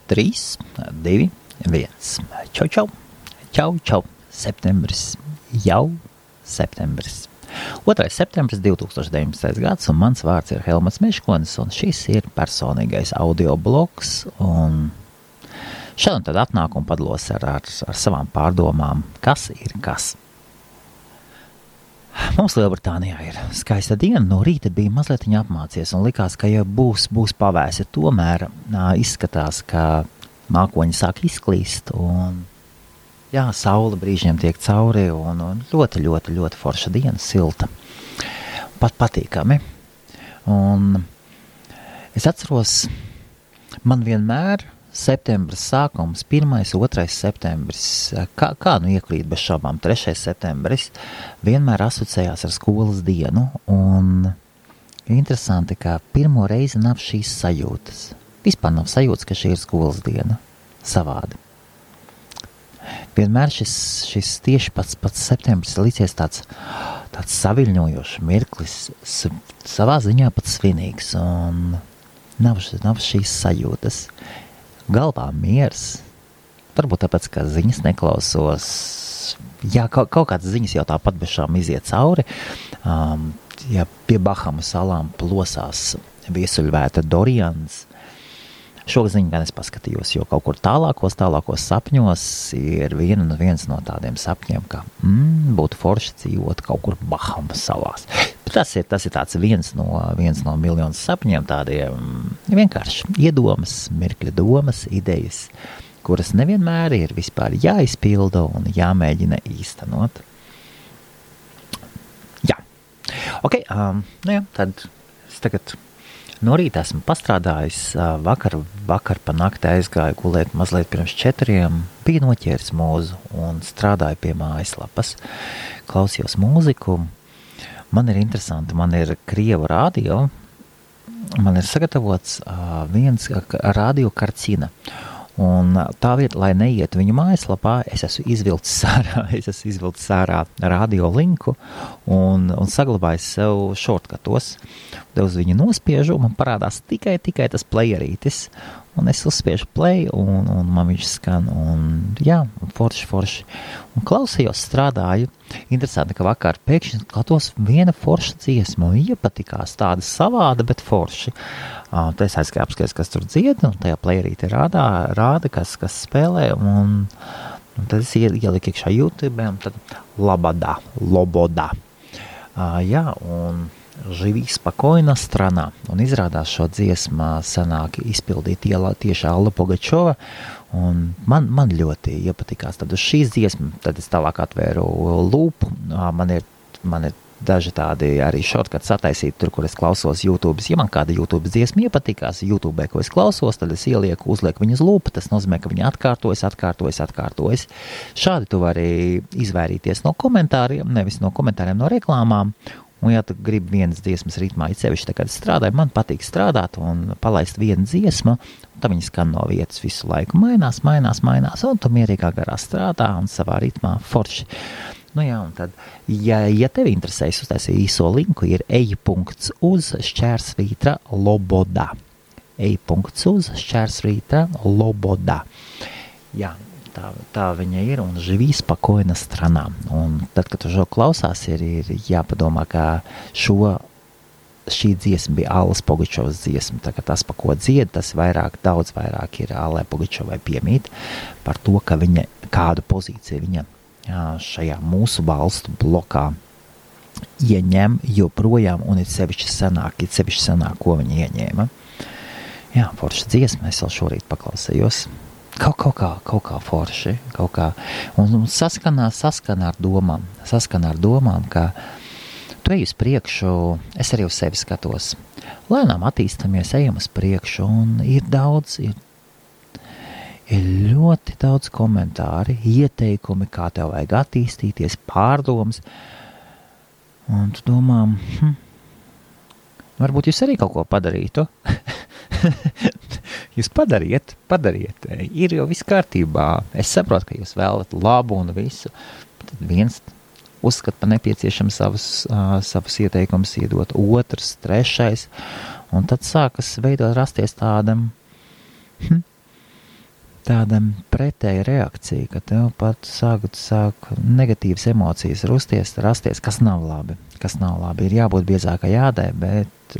3, 2, 1. Čau, čau, čau, čau, septembris, jau septembris. 2. septembris 2019. gads, un mans vārds ir Helmuts Meškonis, un šis ir personīgais audio blogs, un šodien tad atnāk un padalos ar savām pārdomām, kas ir kas. Mums Lielbritānijā ir skaista diena, no rīta bija mazliet apmācies un likās, ka jau būs pavēsi. Tomēr izskatās, ka mākoņi sāk izklīst un jā, saule brīžiem tiek cauri un ļoti, ļoti, ļoti forša diena, silta. Pat patīkami. Un es atceros, man vienmēr septembris sākums, 1. 2. septembris, kā nu iekrīt bez šaubām, 3. septembris, vienmēr asociējās ar skolas dienu, un interesanti, ka pirmo reizi nav šīs sajūtas. Vispār nav sajūtas, ka šī ir skolas diena. Savādi. Vienmēr šis tieši pats septembris licies tāds saviļņojošs mirklis, savā ziņā pat svinīgs, un nav šīs sajūtas. Galvā miers, varbūt tāpēc, ka ziņas neklausos, jā, kaut kādas ziņas jau tāpat bešām iziet cauri, ja pie Bahamu salām plosās viesuļvēta Dorians, šo ziņu gan es paskatījos, jo kaut kur tālākos sapņos ir viens no tādiem sapņiem, ka būtu forši dzīvot kaut kur Bahamu salās. Tas ir tāds viens no miljonu sapņiem, tādiem vienkārši iedomas, mirkļa domas, idejas, kuras nevienmēr ir vispār jāizpilda un jāmēģina īstenot. Jā. Ok, tad es tagad no rīta esmu pastrādājis, vakar pa nakti aizgāju gulēt mazliet pirms 4, bija noķēris mūzu un strādāju pie mājaslapas, klausījos mūziku. Man ir interesanti, man ir Krievu radio, man ir sagatavots viens radio karcina. Un tā vieta, lai neiet viņu mājaslapā, es esmu izvilcis ārā radio linku un saglabājis sev šortkatos. Uz viņu nospiežu, man parādās tikai tas playerītis, un es uzspiežu play, un man viņš skan, un jā, forši. Un klausījos, strādāju. Interesanti, ka vakar pēkšņi klatos viena forša dziesma, un iepatikās tāda savāda, bet forši. Tad es aizgāju apskaties, kas tur dzied, un tajā playerīte rāda, kas spēlē, un tad es ieliku iekšā YouTube, un tad Loboda. Jā, un Živi spokojna strana, un izrādās šo dziesmu sanāk izpildīt tieši Alla Pugačova, un man ļoti iepatikās. Tad uz šīs dziesmas, tad es tālāk atvēru lūpu, man ir daži tādi arī shortcuts sataisīti tur, kur es klausos YouTube. Ja man kāda YouTube dziesma iepatikās YouTube, ko es klausos, tad es uzlieku viņu uz lūpu, tas nozīmē, ka viņi atkārtojas. Šādi tu vari izvairīties no komentāriem, nevis no komentāriem, no reklāmām. Un ja tu gribi vienas dziesmas ritmā, it sevišķi, kad es strādāju, man patīk strādāt un palaist vienu dziesmu, un tad viņi skan no vietas visu laiku, mainās, un tu mierīgā garā strādā un savā ritmā forši. Nu jā, un tad, ja tevi interesēs, uztaisīju īso linku, ir ej.uz/Loboda. ej.uz/Loboda. Jā. Tā viņa ir, un Živi spokojna strana. Un tad, kad tu šo klausās, ir jāpadomā, ka šī dziesma bija Allas Pugačovas dziesma. Tā kā tas, pa ko dzied, tas daudz vairāk ir Allai Pugačovai piemīt par to, ka viņa kādu pozīciju viņa šajā mūsu valstu blokā ieņem joprojām, un ir sevišķi senāk, ko viņa ieņēma. Jā, forša dziesma, es vēl šorīt paklausējos. Kaut kā forši, un saskana ar domām, ka tu ej uz priekšu, es arī uz sevi skatos, lēnām attīstamies, ejam uz priekšu, un ir ļoti daudz komentāri, ieteikumi, kā tev vajag attīstīties, pārdomas, un tu domā, varbūt jūs arī kaut ko padarītu. Jūs padariet, ir jau viss kārtībā. Es saprotu, ka jūs vēlat labu un visu. Tad viens uzskata par nepieciešam savus ieteikumus iedot, otrs, trešais, un tad sākas rasties tādam tāda pretēja reakcija, ka tev pat sāk negatīvas emocijas rasties, kas nav labi. Ir jābūt biezākai ādai, bet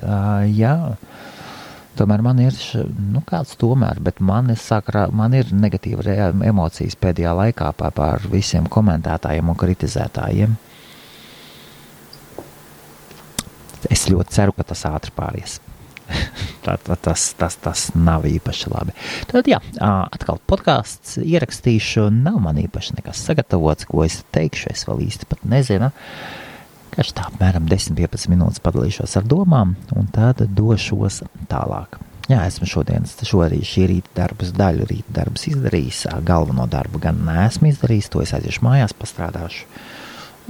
jā, tomēr man ir, bet man ir negatīva emocijas pēdējā laikā par visiem komentētājiem un kritizētājiem. Es ļoti ceru, ka tas ātri pāries. Tas nav īpaši labi. Tad jā, atkal podcasts ierakstīšu, nav man īpaši nekas sagatavots, ko es teikšu, es vēl īsti pat nezinu. Kaž tā apmēram 10-15 minūtes padalīšos ar domām, un tad došos tālāk. Jā, esmu šī rīta darbus izdarījis, galveno darbu gan neesmu izdarījis, to es aiziešu mājās, pastrādāšu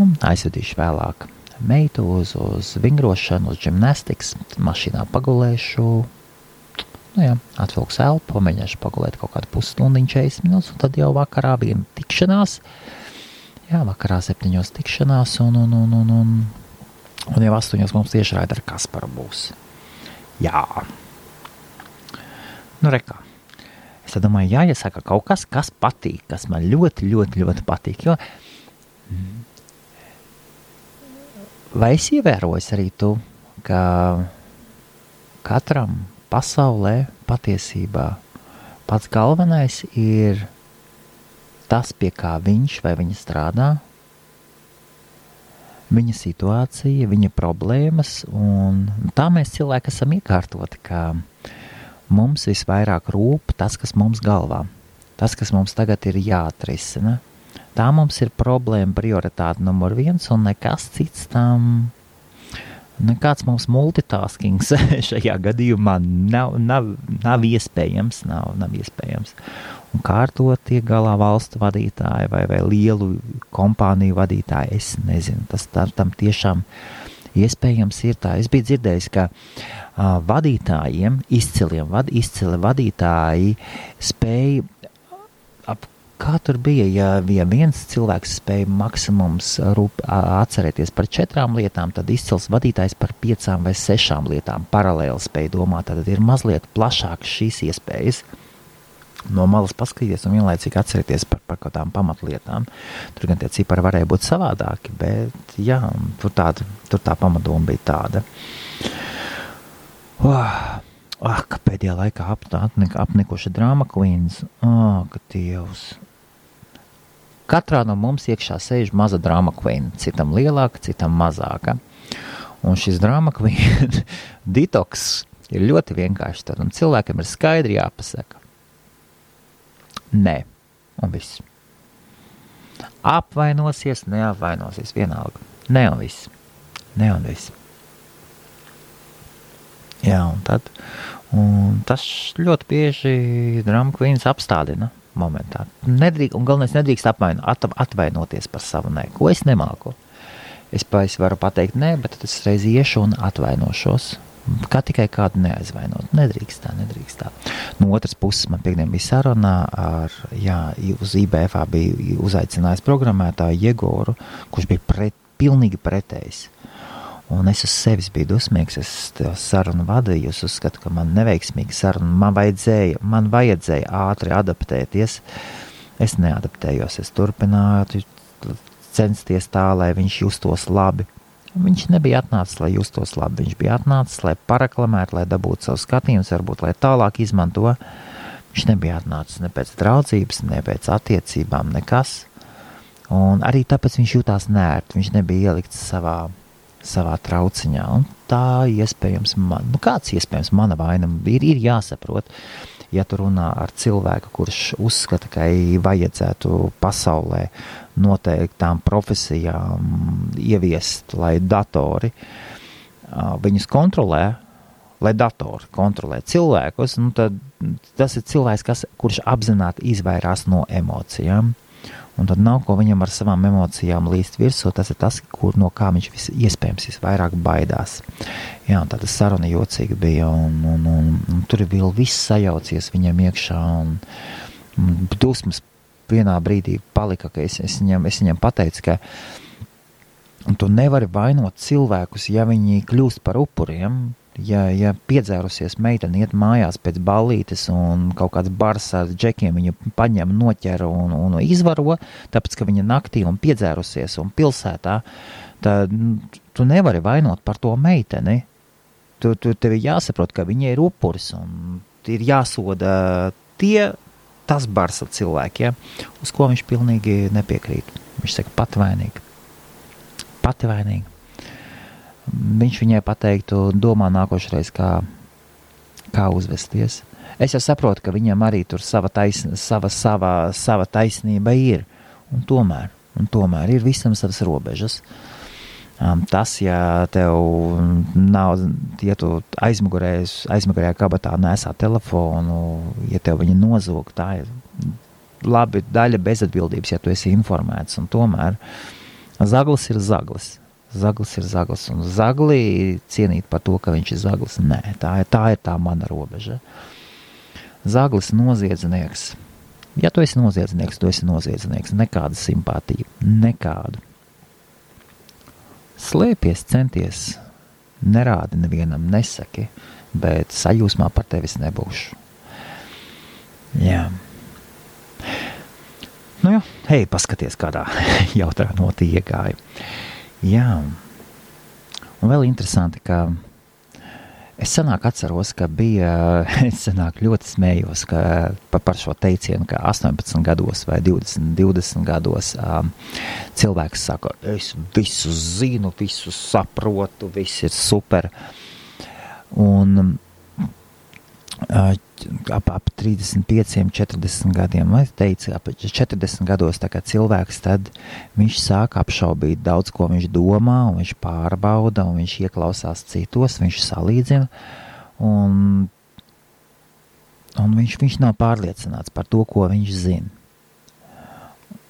un aizvedīšu vēlāk meitu uz vingrošanu, uz gimnastikas, mašīnā pagulēšu, atvilkšu elpu, pamēģināšu pagulēt kaut kādu pusstundiņu 40 minūtes, un tad jau vakarā bija tikšanās, vakarā 7 tikšanās, un jau 8 mums tieši raida ar Kasparu būs. Jā. Rekā. Es domāju, jāiesaka kaut kas patīk, kas man ļoti, ļoti, ļoti patīk, jo vai es ievēroju arī tu, ka katram pasaulē patiesībā pats galvenais ir tas, pie kā viņš vai viņa strādā, viņa situācija, viņa problēmas, un tā mēs cilvēki esam iekārtoti, ka mums visvairāk rūp tas, kas mums galvā, tas, kas mums tagad ir jāatrisina. Tā mums ir problēma prioritāte numur 1, un nekas cits tam, nekāds mums multitaskings šajā gadījumā nav iespējams, nav iespējams. Un kā ar to tiek galā valstu vadītāji vai lielu kompāniju vadītāji, es nezinu, tas tam tiešām iespējams ir tā. Es biju dzirdējis, ka vadītājiem, izcili vadītāji spēja kā tur bija, ja viens cilvēks spēja maksimums atcerēties par 4 lietām, tad izcils vadītājs par 5 vai 6 lietām paralēli spēja domāt, tad ir mazliet plašākas šīs iespējas. No malas paskatīties un vienlaicīgi atcerēties par kaut tām pamatlietām. Tur gan tie cipari varēja būt savādāki, bet jā, tur tā pamatdoma bija tāda. Ka pēdējā laikā apnikuši drama queens. Ka Dievs. Katrā no mums iekšā sēž maza drama queen, citam lielāka, citam mazāka. Un šis drama queen detoks ir ļoti vienkārši tad, un cilvēkam ir skaidri jāpasaka. Nē, un viss. Apvainosies, neapvainosies, vienalga. Nē, un viss. Jā, un tas ļoti bieži drama queens apstādina momentā. Un galvenais nedrīkst atvainoties par savu nē, ko es nemāku. Es varu pateikt nē, bet tad es reiz iešu un atvainošos. Kā tikai kādu neaizvainot. Nedrīkst tā. No otras puses, man piekdien bija sarunā uz IBFā bija uzaicinājis programmētāju Jegoru, kurš bija pilnīgi pretējs. Un es uz sevis biju dusmīgs, es sarunu vadīju, es uzskatu, ka man neveiksmīgi saruna, man vajadzēja ātri adaptēties. Es neadaptējos, es turpināju censties tā, lai viņš justos labi. Viņš nebija atnācis, lai justos labi, viņš bija atnācis, lai pareklamētu, lai dabūtu savu skatījumus, varbūt, lai tālāk izmanto. Viņš nebija atnācis ne pēc draudzības, ne pēc attiecībām, nekas. Un arī tāpēc viņš jutās nērti, viņš nebija ielikts savā trauciņā, un tā iespējams, kāds iespējams mana vaina ir jāsaprot, ja tu runā ar cilvēku, kurš uzskata, ka vajadzētu pasaulē noteiktām profesijām ieviest, lai datori viņus kontrolē, lai datori kontrolē cilvēkus, tad tas ir cilvēks, kurš apzināti izvairās no emocijām. Un tad nav ko viņam ar savām emocijām līst virsū, tas ir tas, no kā viņš iespējams visvairāk baidās. Jā, un tāda saruna jocīga bija, un tur ir vēl viss sajaucies viņam iekšā, un dusmas vienā brīdī palika, ka es viņam pateicu, ka tu nevari vainot cilvēkus, ja viņi kļūst par upuriem, Ja piedzērusies meitene iet mājās pēc ballītes un kaut kāds bars ar džekiem viņu paņem, noķer un izvaro, tāpēc, ka viņa naktī un piedzērusies un pilsētā, tad tu nevari vainot par to meiteni. Tev ir jāsaprot, ka viņa ir upuris un ir jāsoda tas bars ar cilvēkiem, uz ko viņš pilnīgi nepiekrīt. Viņš saka, pati vainīga. Viņš viņai pateiktu, domā nākošreiz, kā uzvesties. Es jau saprotu, ka viņam arī tur sava taisnība ir. Un tomēr ir visam savas robežas. Tas, ja tev nav, ja tu aizmugurējā kabatā nesā telefonu, ja tev viņa nozog, tā ir labi daļa bezatbildības, ja tu esi informēts. Un tomēr zaglis ir zaglis. Zaglis ir zaglis, un zagli cienīt par to, ka viņš ir zaglis. Nē, tā ir tā mana robeža. Zaglis noziedznieks. Ja tu esi noziedznieks, tu esi noziedznieks. Nekāda simpātija. Nekādu. Slēpies, centies. Nerādi nevienam, nesaki, bet sajūsmā par tevis nebūšu. Jā. Nu jā, hei, paskaties, kādā jautrā notī iegāja. Jā, un vēl interesanti, ka es atceros, ka es ļoti smējos par šo teicienu, ka 18 gados vai 20 gados cilvēks saka, es visu zinu, visu saprotu, viss ir super. Un ap 35, 40 gadiem, vai teica, ap 40 gados tā kā cilvēks, tad viņš sāk apšaubīt daudz, ko viņš domā, un viņš pārbauda, un viņš ieklausās citos, viņš salīdzina, un viņš nav pārliecināts par to, ko viņš zina.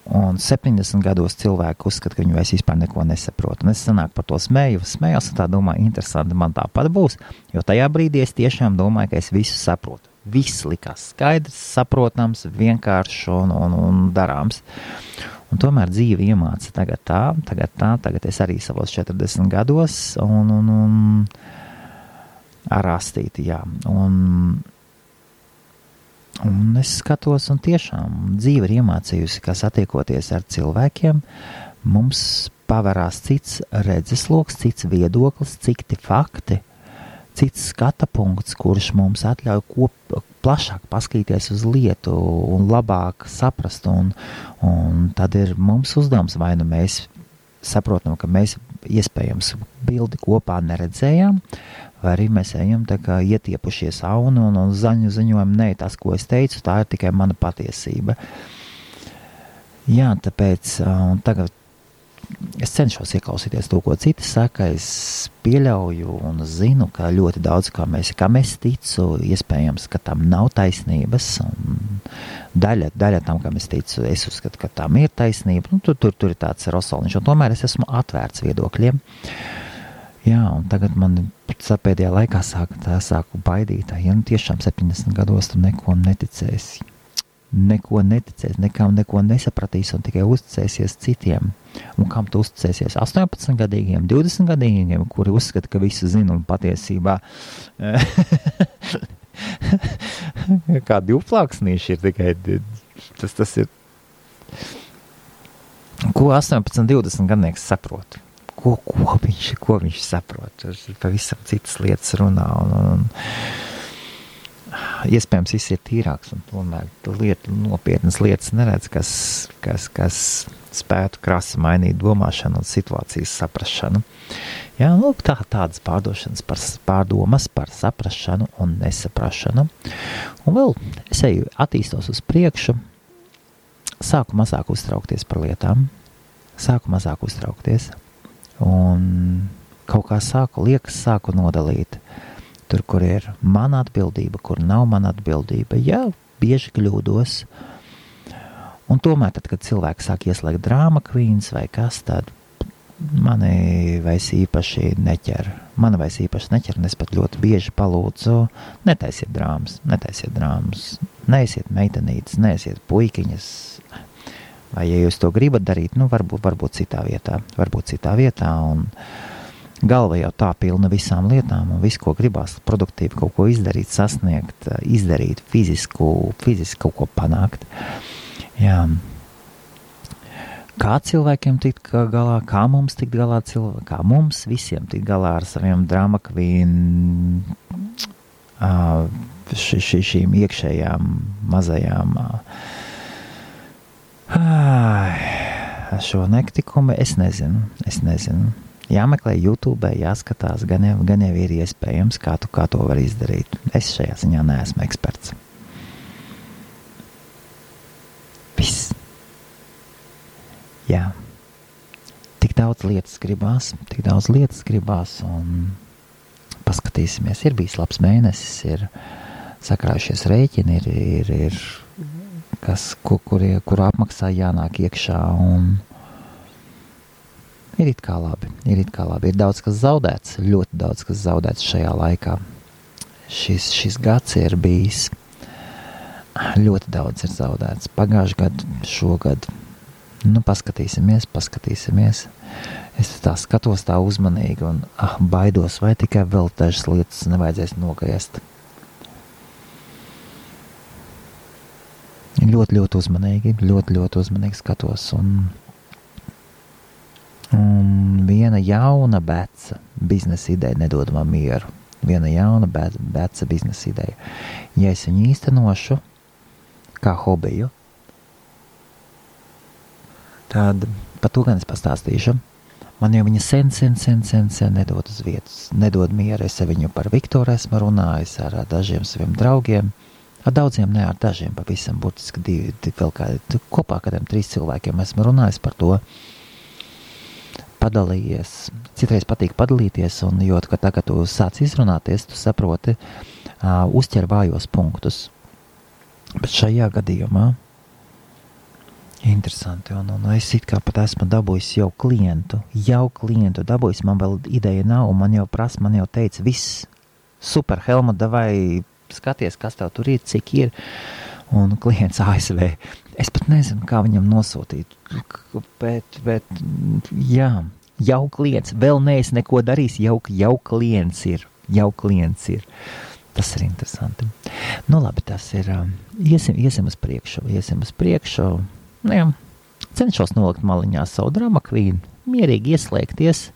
Un 70 gados cilvēki uzskata, ka viņi vairs vispār neko nesaprot. Un es sanāk par to smējos un tā domāju, interesanti, man tāpat būs, jo tajā brīdī es tiešām domāju, ka es visu saprotu. Viss likās skaidrs, saprotams, vienkāršs un darāms. Un tomēr dzīve iemāca tagad es arī savos 40 gados un ar astīti, jā. Un es skatos, un tiešām dzīve ir iemācījusi, ka satiekoties ar cilvēkiem, mums pavarās cits redzesloks, cits viedoklis, citi fakti, cits skata punkts, kurš mums atļauj plašāk paskatīties uz lietu un labāk saprast. Un tad ir mums uzdevums, vai nu mēs saprotam, ka mēs iespējams bildi kopā neredzējām, vai arī mēs ejam tā kā ietiepušies aunu un ziņojam, nē, tas, ko es teicu, tā ir tikai mana patiesība. Jā, tāpēc tagad es cenšos ieklausīties to, ko citi saka, es pieļauju un zinu, ka ļoti daudz, kam es ticu, iespējams, ka tam nav taisnības, un daļa tam, kam es ticu, es uzskatu, ka tam ir taisnība, nu, tur ir tāds rosoliņš, un tomēr es esmu atvērts viedokļiem. Jā, un tagad man pēdējā laikā sāku baidīt, ja nu tiešām 70 gados tu neko neticēsi, nekam neko nesapratīsi un tikai uzticēsies citiem. Un kam tu uzticēsies? 18-gadīgiem, 20-gadīgiem, kuri uzskata, ka visu zina un patiesībā kā divplāksnīši ir tikai, tas ir, ko 18-20 gadnieks saprot. Ko viņš saprot? Tas ir pavisam citas lietas runā un iespējams viss ir tīrāks un tomēr nopietnas lietas neredz, kas spētu krasi mainīt domāšanu un situācijas saprašanu. Jā, lūk, tādas pārdomas par saprašanu un nesaprašanu. Un vēl es attīstos uz priekšu, sāku mazāk uztraukties par lietām, un kaut kā sāku nodalīt. Tur, kur ir mana atbildība, kur nav mana atbildība. Jā, bieži kļūdos. Un tomēr, tad, kad cilvēki sāk ieslēgt drāma queens vai kas, tad mani vairs īpaši neķer. Un es pat ļoti bieži palūdzu, netaisiet drāmas. Neesiet meitenītes, neesiet puikiņas. Vai, ja jūs to gribat darīt, nu, varbūt citā vietā. galva jau tā pilna visām lietām un visu, ko gribās produktīvi kaut ko izdarīt, sasniegt, izdarīt, fiziski kaut ko panākt. Jā. Kā cilvēkiem tikt galā, kā mums tikt galā, kā mums visiem tikt galā ar saviem drama queen, šīm iekšējām mazajām šo nektikumu, es nezinu. Jāmeklē YouTube, jāskatās, gan jau ir iespējams, kā to var izdarīt. Es šajā ziņā neesmu eksperts. Viss. Jā. Tik daudz lietas gribās, un paskatīsimies. Ir bijis labs mēnesis, ir sakrājušies rēķini, ir kuru apmaksā jānāk iekšā, un ir it kā labi. Ir daudz kas zaudēts, ļoti daudz kas zaudēts šajā laikā. Šis gads ir bijis, ļoti daudz ir zaudēts. Pagājuši gadu, šogad, paskatīsimies. Es tā skatos tā uzmanīgi un baidos, vai tikai vēl dažas lietas nevajadzēs nogriezt. Ļoti uzmanīgi skatos, un viena jauna beca biznesa ideja nedod man mieru. Viena jauna beca biznesa ideja. Ja es viņu īstenošu kā hobiju, tad par to gan es pastāstīšu. Man jau viņa sen nedod uz vietas, nedod mieru. Es ar viņu par Viktoru esmu runājis, ar dažiem saviem draugiem, ar daudziem, ne ar dažiem, pavisam burtiski divi vēl kādi, kopā kādiem 3 cilvēkiem esmu runājis par to, padalījies. Citreiz patīk padalīties, un jo, ka tagad tu sāc izrunāties, tu saproti, uzķer vājos punktus. Bet šajā gadījumā interesanti, un es it kā pat esmu dabūjis jau klientu dabūjis, man vēl ideja nav, un man jau teica, viss, super, Helmut, davai skaties, kas tev tur ir, cik ir, un klients ASV, es pat nezinu, kā viņam nosūtīt, bet jā, jau klients, vēl neesi neko darījis, jau klients ir, tas ir interesanti. Labi, tas ir, iesim uz priekšu, jā, cenšos nolikt maliņā savu drama queen, mierīgi ieslēgties.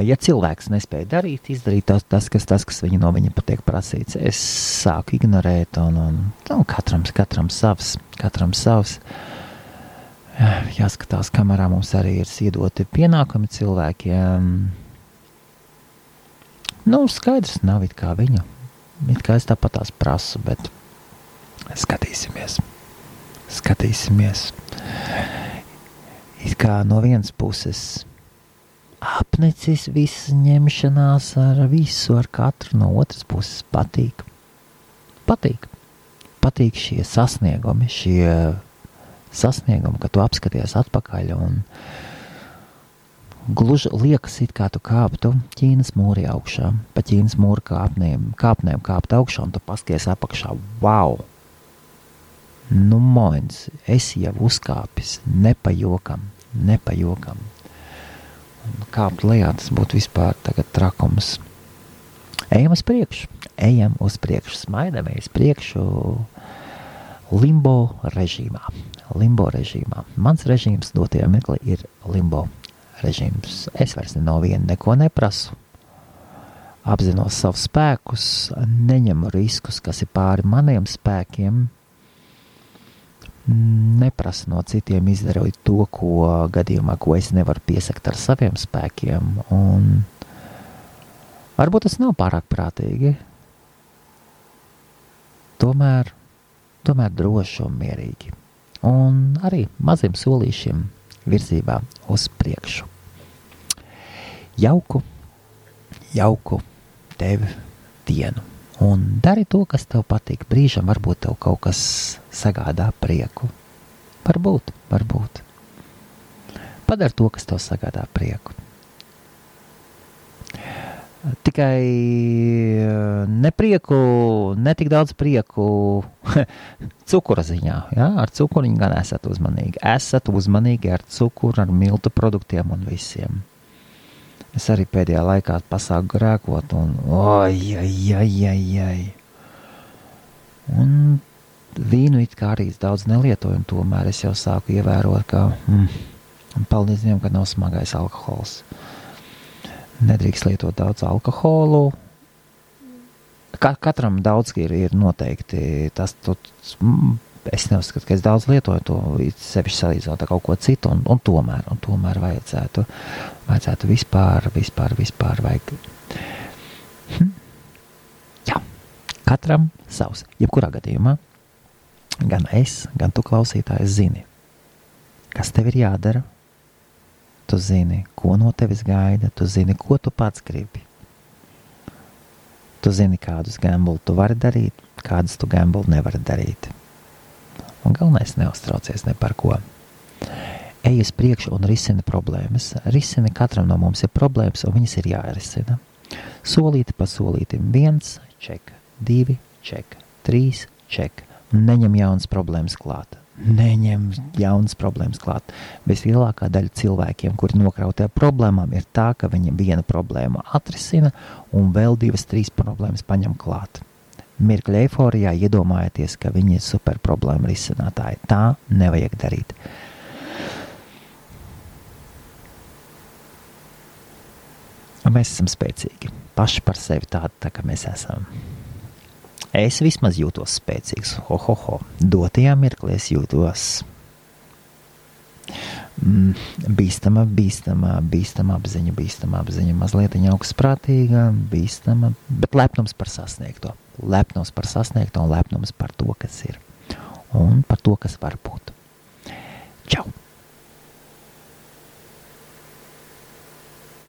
Ja cilvēks nespēja izdarīt tas, kas no viņa patiek prasīts, es sāku ignorēt, un katram savs. Jāskatās, kamerā mums arī ir iedoti pienākumi cilvēkiem. Skaidrs nav it kā viņa. It kā es tāpat tās prasu, bet skatīsimies. It kā no vienas puses apnicis viss ņemšanās ar visu, ar katru, no otras puses patīk. Patīk šie sasniegumi, ka tu apskaties atpakaļ un gluži liekas it kā tu kāptu Ķīnas mūri augšā, pa Ķīnas mūra kāpnēm kāpt augšā, un tu paskaties apakšā, wow! Moins, es jau uzkāpis, nepajokam. Kāpt lejā, tas būtu vispār tagad trakums. Ejam uz priekšu, smaidamies priekšu limbo režīmā. Mans režīms dotajā mirklī ir limbo režīms. Es vairs no viena neko neprasu. Apzinos savus spēkus, neņemu riskus, kas ir pāri maniem spēkiem. Neprasa no citiem izdarīt to, ko es nevaru piesakt ar saviem spēkiem, un varbūt tas nav pārāk prātīgi. Tomēr droši un mierīgi, un arī maziem solīšiem virzībā uz priekšu. Jauku tev dienu. Un dari to, kas tev patīk. Brīžam varbūt tev kaut kas sagādā prieku. Varbūt. Padari to, kas tev sagādā prieku. Tikai netik daudz prieku cukura ziņā. Ja? Ar cukuriņu gan esat uzmanīgi. Esat uzmanīgi ar cukuru, ar miltu produktiem un visiem. Es arī pēdējā laikā pasāku grēkot un Un vīnu it kā arī daudz nelietoju, un tomēr es jau sāku ievērot, ka paldies Dievam, ka nav smagais alkohols. Nedrīkst lietot daudz alkoholu. Katram daudz ir noteikti tas, es neuzskatu, ka es daudz lietoju to, sevišķi salīdzinot ar kaut ko citu, un tomēr vajadzētu vispār vajag. Jā, katram savs. Jebkurā gadījumā, gan es, gan tu klausītājs zini, kas tev ir jādara, tu zini, ko no tevis gaida, tu zini, ko tu pats gribi. Tu zini, kādus gambuli tu vari darīt, kādus tu gambuli nevari darīt. Un galvenais neuztraucies ne par ko. Ej uz priekšu un risini problēmas. Risini, katram no mums ir problēmas, un viņas ir jārisina. Solīti pa solītim. 1, ček, 2, ček, 3, ček. Neņem jaunas problēmas klāt. Vislielākā daļa cilvēkiem, kuri nokrautē problēmām, ir tā, ka viņi vienu problēmu atrisina un vēl 2, 3 problēmas paņem klāt. Mirkļa eiforijā iedomājieties, ka viņi ir super problēma risinātāji. Tā nevajag darīt. Mēs esam spēcīgi. Paši par sevi tādi, tā kā mēs esam. Es vismaz jūtos spēcīgs. Dotajā mirklī es jūtos bīstama apziņa, mazliet augstprātīga, bīstama, bet lepnums par sasniegto. Lepnums par sasniegto un lepnums par to, kas ir. Un par to, kas var būt.